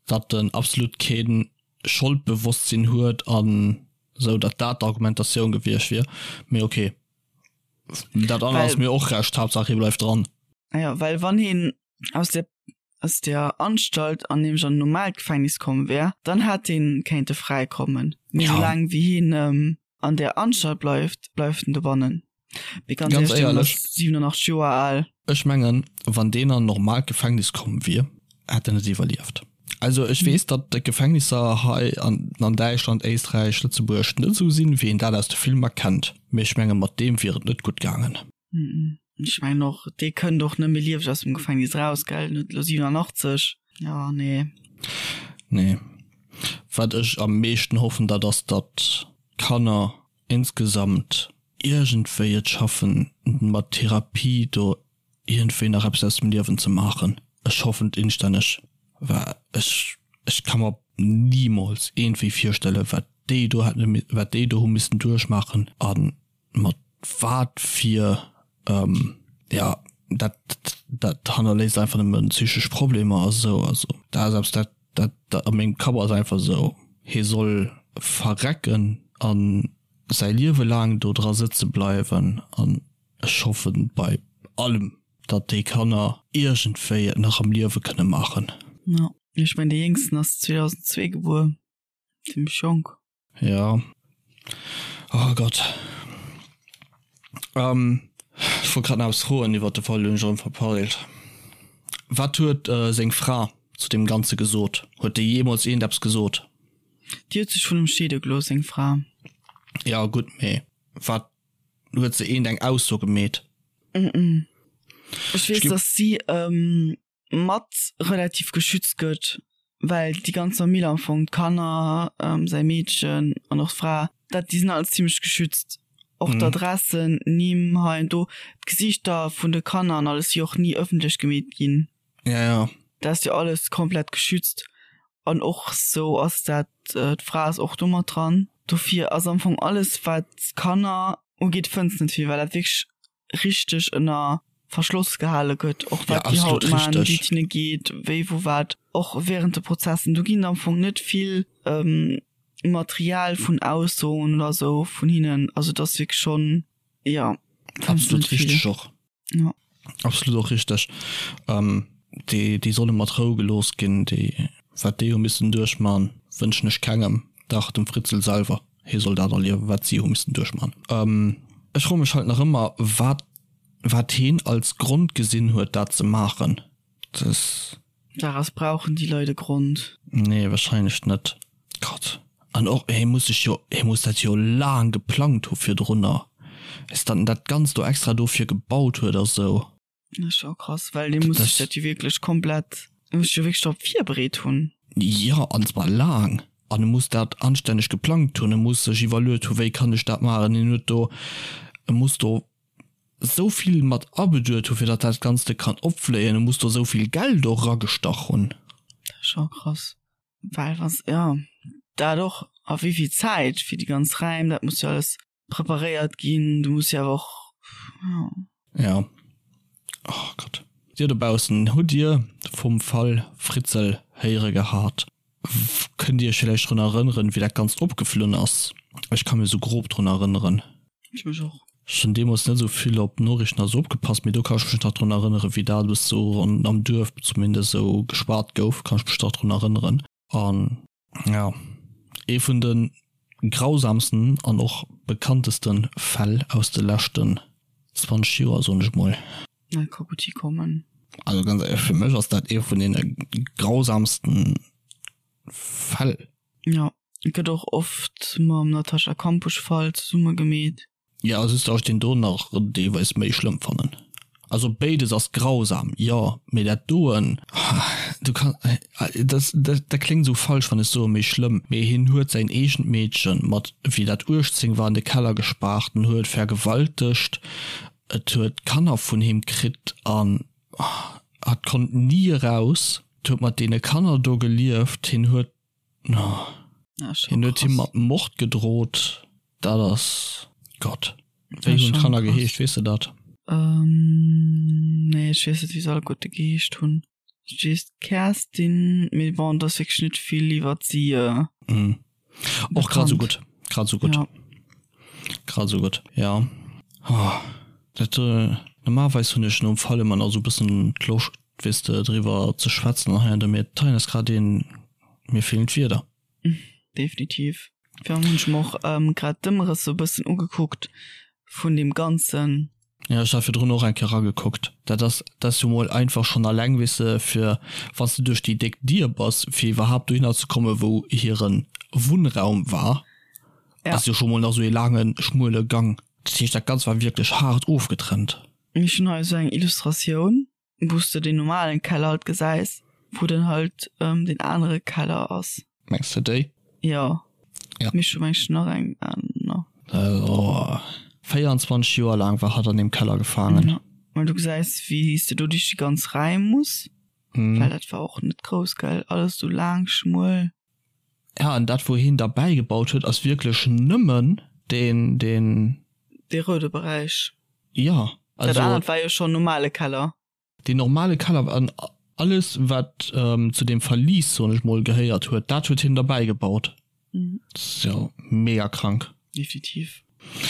datt en absolut kee Scholdbewosstsinn huet an esou, datt dat d'Argumentatioun gewiescht wier. Mee ok, dat anert ass mir och Recht, Haaptsaach hie bleift dran. Jo, well wann hien aus der aus der Anstalt an nämlech an en normaalt Gefängnis komm wär, dann hätt hien kéinte fräi kommen. Mee ja. soulaang wéi hien ähm, an der Anstalt bleift, bleift en dobannen. Mee ganz, ganz éierlech, 87 Joer al. Ech mengen, wann deen an normaalt Gefängnis komm wier, hätt en net iwwerlieft. Also ech weess, datt d'Gefängnisser hei an, an Däitschland, Éisträich, Lëtzebuerg net esou sinn, wéi een dat aus de Filmer kennt. Mee ech menge mat deem wier et net gutt gaangen. Ech mengen och, dee kënnt och net méi lieweg aus dem Gefängnis raus, gell? En huet elo 87. Jo, nee. Nee. Wat ech am meeschten hoffen, dat ass, datt d'Kanner insgesamt. iergendwéi et schaffen mat Therapie do iergendwéi nach eppes aus dem Liewen ze maachen. Ech hoffen et instänneg, well ech ech ka mer nimools iergendwéi virstellen, wat déi do hätte wat déi do hu missen duerchmaachen a mat wat fir jo dat dat hannerléisst einfach nëmmen psychesch Problemer a sou. Also dat ass eppes dat dat dat a mengem Kapp ass einfach esou, hie soll verrecken a säi Liewe laang do dra sëtze bleiwen an ech hoffen bei allem, datt déi Kanner iergendwéi et nach am Liewe kënne maachen. Jo, ech mengen dee Jéngsten ass 2002 gebuer, zimmlech jonk. Jo, oh Gott. Ech wollt grad nach eppes froen iwwert de Fall, hunn ech erëm verpeilt. Wat huet seng Fra zu deem Ganze gesot? Huet déi jeemools iergendeppes gesot? Déi huet sech vun em scheede gelooss, seng Fra. Jo gutt, mee wat huet se eent eng Ausso gemeet? Ech weess, datt si mat relativ geschützt gëtt, well déi ganz Famill am Fong, d'Kanner, säi Meedchen an och d'Fra, dat déi sinn all zimmlech geschützt. Och d'Adressen, Nimm hei an do, d'Gesiichter vun de Kanner an alles si och ni ëffentlech gemeet ginn. Ja, ja. Dat ass jo alles komplett geschützt. An och sou ass dat, d'Fra ass och do mat dran. Dofir ass am Fong alles, wat d'Kanner ugeet, fënns net vill, well dat wierklech richteg ënner Verschloss gehale gëtt, och wat déi haut man, wéi et hinne geet, wéi wou wat, och während de Prozessen. Do ginn am Fong net vill Material vun Aussoen oder sou vun hinnen. Also et ass wierklech schonn, jo, fënns net vill. Absolut richteg och. Ja. Absolut och richteg. Ähm, déi, déi solle mat Rou gelooss ginn. Déi, wat déi hu missen duerchman, wënschen ech kengem. Dach, dem Fritzl selwer, hie soll dat erliewen, wat si hu missen duerchman. Ähm, ech froe mech halt nach ëmmer, wat, wat heen als Grond gesinn huet, dat ze maachen. Das. Daraus brauchen déi Leit e Grond. Nee, wahrscheinlech net. Gott. An och, hie muss sech jo, hie muss dat jo laang geplangt hu virdrunner, bis datt en dat Ganzt do extra dofir gebaut huet a sou. Dat ass scho krass, well dee muss sech dat jo wierklech komplett, dee muss sech jo wierklech drop virbereet hunn. Jo, an zwar laang. An e muss dat anstänneg geplangt hunn, e muss sech iwwerluet hu wéi kann ech dat maachen. Hien huet do, e muss do esou vill mat abeduet hu fir datt dat Ganzte kann opfléien, e muss do esou vill Geld och eragestach hunn. Dat ass scho krass. Well was, jo, dat och, a wéi vill Zäit fir déi ganz Räim, dat muss jo alles preparéiert ginn, du muss jo awer och, jo. Ja. Oh Gott. Dir dobaussen, hutt Dir vum Fall Fritzel héiere gehat? Kënnt Dir Iech villäicht drun erënneren, wéi dat Ganzt opgeflunn ass? Ech ka mir sou grob drun erënneren. Ech mech och. Ech hunn deemools net esou vill op d'Noriichten a sou opgepasst, mee do kann ech mech nach drun erënneren, wéi dat alles sou am Duerf zumindest esou geschwat gouf, kann ech mech nach drun erënneren. An jo, ee vun de grausamsten an och bekannteste Fäll aus de leschten 20 Joer, soen ech mol. Dat ka gutt hikommen. Also ganz éierlech, fir mech ass dat ee vun deene grausamsten Fäll. Jo, gëtt och oft mam Natascha Kampusch-Fall zesumme gemeet. Jo, just dass ech deen do nach deelweis méi schlëmm fannen. Also béides ass grausam, jo, mee dat doen, du kann, dat dat kléngt esou falsch wann ech soe méi schlëmm, mee hien huet säin eegent Meedchen mat wéi dat 18 war an de Keller gespaart, en huet vergewaltegt, et huet Kanner vun him kritt an hatt konnt ni eraus, et huet mat deene Kanner do gelieft, hien huet Hien huet him mat Mord gedrot. Dat ass Gott. Wéi hunn d'Kanner geheescht, weess de dat? Nee, ech weess net, wéi se alleguerte geheescht hunn. Ech weess d'Kerstin, mee bon, et ass wierklech net vill iwwert si bekannt. Och grad esou gutt, grad esou gutt. Grad esou gutt, jo. Dat, normalerweis hunn ech nom Fall ëmmer nach esou e bëssen d'Loscht, weess de, driwwer ze schwätzen an hei an do, mee d'Tein ass grad een, mir feelen d'Wierder. Definitiv. Virun hunn ech mer och grad d'Ëmrëss sou e bëssen ugekuckt vun deem Ganzen. Jo, ech hat virdrun och eng Kéier eragekuckt. Dat ass, dat ass jo mol einfach schonn alleng, weess de, fir wann s de duerch déi déck Dier bass, fir iwwerhaapt dohinner ze kommen, wou hire Wunnraum war, ass jo scho mol nach sou ee laange schmuele Gang. Dat heescht, dat Ganzt war wierklech haart ofgetrennt. Ech hunn hei esou eng Illustratioun. Wous de den normalen Keller halt gesäis, wou dann halt den anere Keller ass. Mengs de déi? Jo. Ja. Mee ech hu mengs nach eng aner. Oh. 24. 24 Joer laang war hatt an deem Keller gefaangen. Ja, well du gesäis, wéi s de do duerch déi ganz Räim muss, well dat war och net grouss, gell? Alles sou laang, schmuel. Ja, an dat wou hien derbäi gebaut huet, ass wierklech nëmmen deen, deen. Dee roude Beräich. Ja, also. Dat anert war jo schonn normale Keller. Deen normale Keller an alles wat zu deem Verlies, soen ech mol, gehéiert huet, dat huet hien derbäi gebaut. Dat ass jo mega krank. Definitiv.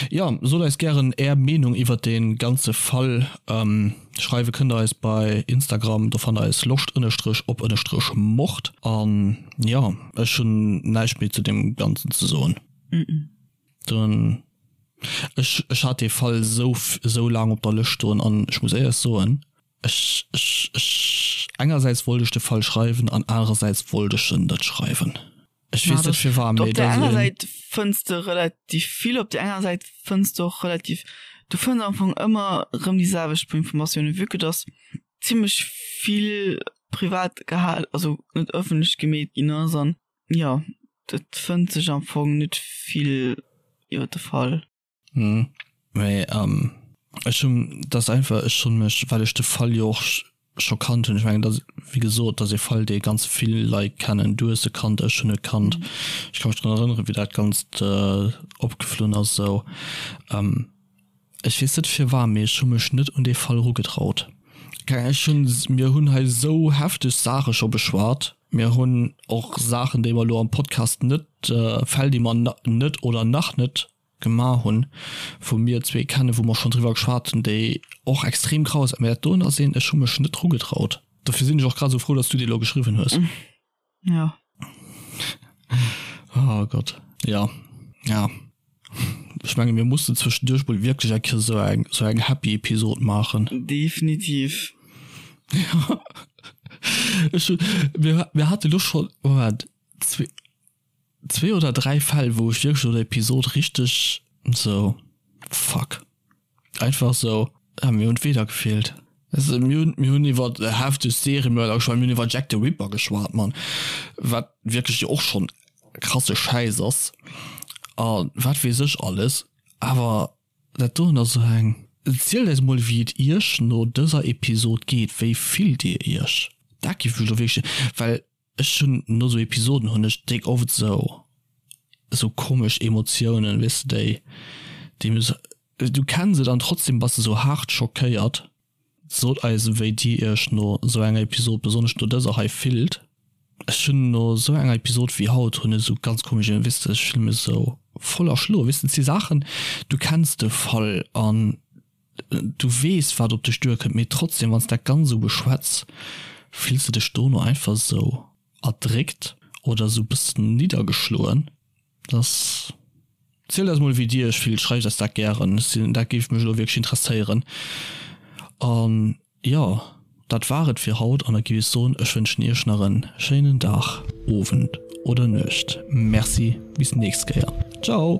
Jo, sot eis gären är Meenung iwwert dee ganze Fall. Schreiwe kënnt der eis bei Instagram, do fannt der eis loscht ënnerstrech op ënnerstrech mord. An jo, ech hunn näischt méi zu deem Ganzen ze soen. Dann, ech, ech hat dee Fall esou, esou laang op der Lëscht stoen an ech muss éierlech soen, ech, ech, ech, engersäits wollt ech de Fall schreiwen an anerersäits wollt ech en net schreiwen. Ech weess net firwat, mee Op där enger Säit fënns de relativ vill, op där enger Säit fënns de och relativ, du fënns am Fong ëmmer erëm déi selwecht puer Informatiounen, vue que dass zimlech vill privat gehal, also net ëffentlech gemeet ginn ass an jo, et fënnt sech am Fong net vill iwwer de Fall. Hm, mee ech hunn, dat ass einfach, ech hunn mech, well ech de Fall jo och scho kannt hunn, ech mengen dat, wéi gesot, dat ass ee Fall, dee ganz vill Leit kennen, du hues e kannt, ech hunn e kannt, ech ka mech drun erënneren, wéi dat Ganzt opgeflunn ass esou. Ech weess net firwat, mee ech hu mech net un dee Fall erugetraut. Keng Ahnung, ech hunn, mir hunn hei esou hefteg Saache scho beschwat, mir hunn och Saachen, déi mer elo am Podcast net, Fäll, déi mer net oder nach net Gemaach hunn, wou mir zwee kennen, wou mer schonn driwwer geschwat hunn, déi och extrem graus sinn. Mä dat doen ass een, ech hu mech net dru getraut. Dofir sinn ech och grad esou frou, datt s du déi elo geschriwwen hues. Ja. Oh Gott. Ja. Ja. Ech menge mir mussen zwëschenduerch mol wierklech eng Kéier esou eng, esou eng happy Episod maachen. Definitiv. Ja. Ech hunn, mir, mir hate lo schonn, Moment, zwee, zwee oder dräi Fäll wou ech wierklech no der Episod richteg sou fuck einfach sou ah mir hunn d'Wierder gefeelt. Also mir hunn mir hunn iwwer hefteg Seriemörder geschwat, mir hunn iwwer Jack the Ripper geschwat Mann, wat wierklech jo och schonn krasse Schäiss ass a wat weess ech alles, awer dat doen ass sou eng. Zielt eis mol wéi et iech no dëser Episod geet, wéi fillt dir iech? Dat géif mech elo wierklech, well Ech hunn no sou Episoden hunn ech déck oft sou sou komesch Emotiounen, weess de, déi déi mir sou, du kenns et an trotzdem bass de sou haart schockéiert. Sot eis wéi dir iech no sou enger Episod, besonnesch no dëser hei, fillt. Ech hunn no sou enger Episod wéi haut hunn ech sou ganz komesch, weess de, ech fille mech sou voll erschloen, weess de, et si Saachen, du kenns de Fall an Du weess wat op dech duerkënnt, mee trotzdem wanns dat ganz esou beschwätz, fills de dech dono einfach esou erdréckt oder esou bëssen niddergeschloen. Dass. Zielt eis mol wéi dir iech fillt, schreift eis dat gären, ech sinn, dat géif mech elo wierklech interesséieren. An jo, dat war et fir haut an da géif ech soen, ech wënschen iech nach en schéinen Dag, Owend oder Nuecht. Merci, bis nächst Kéier, ciao.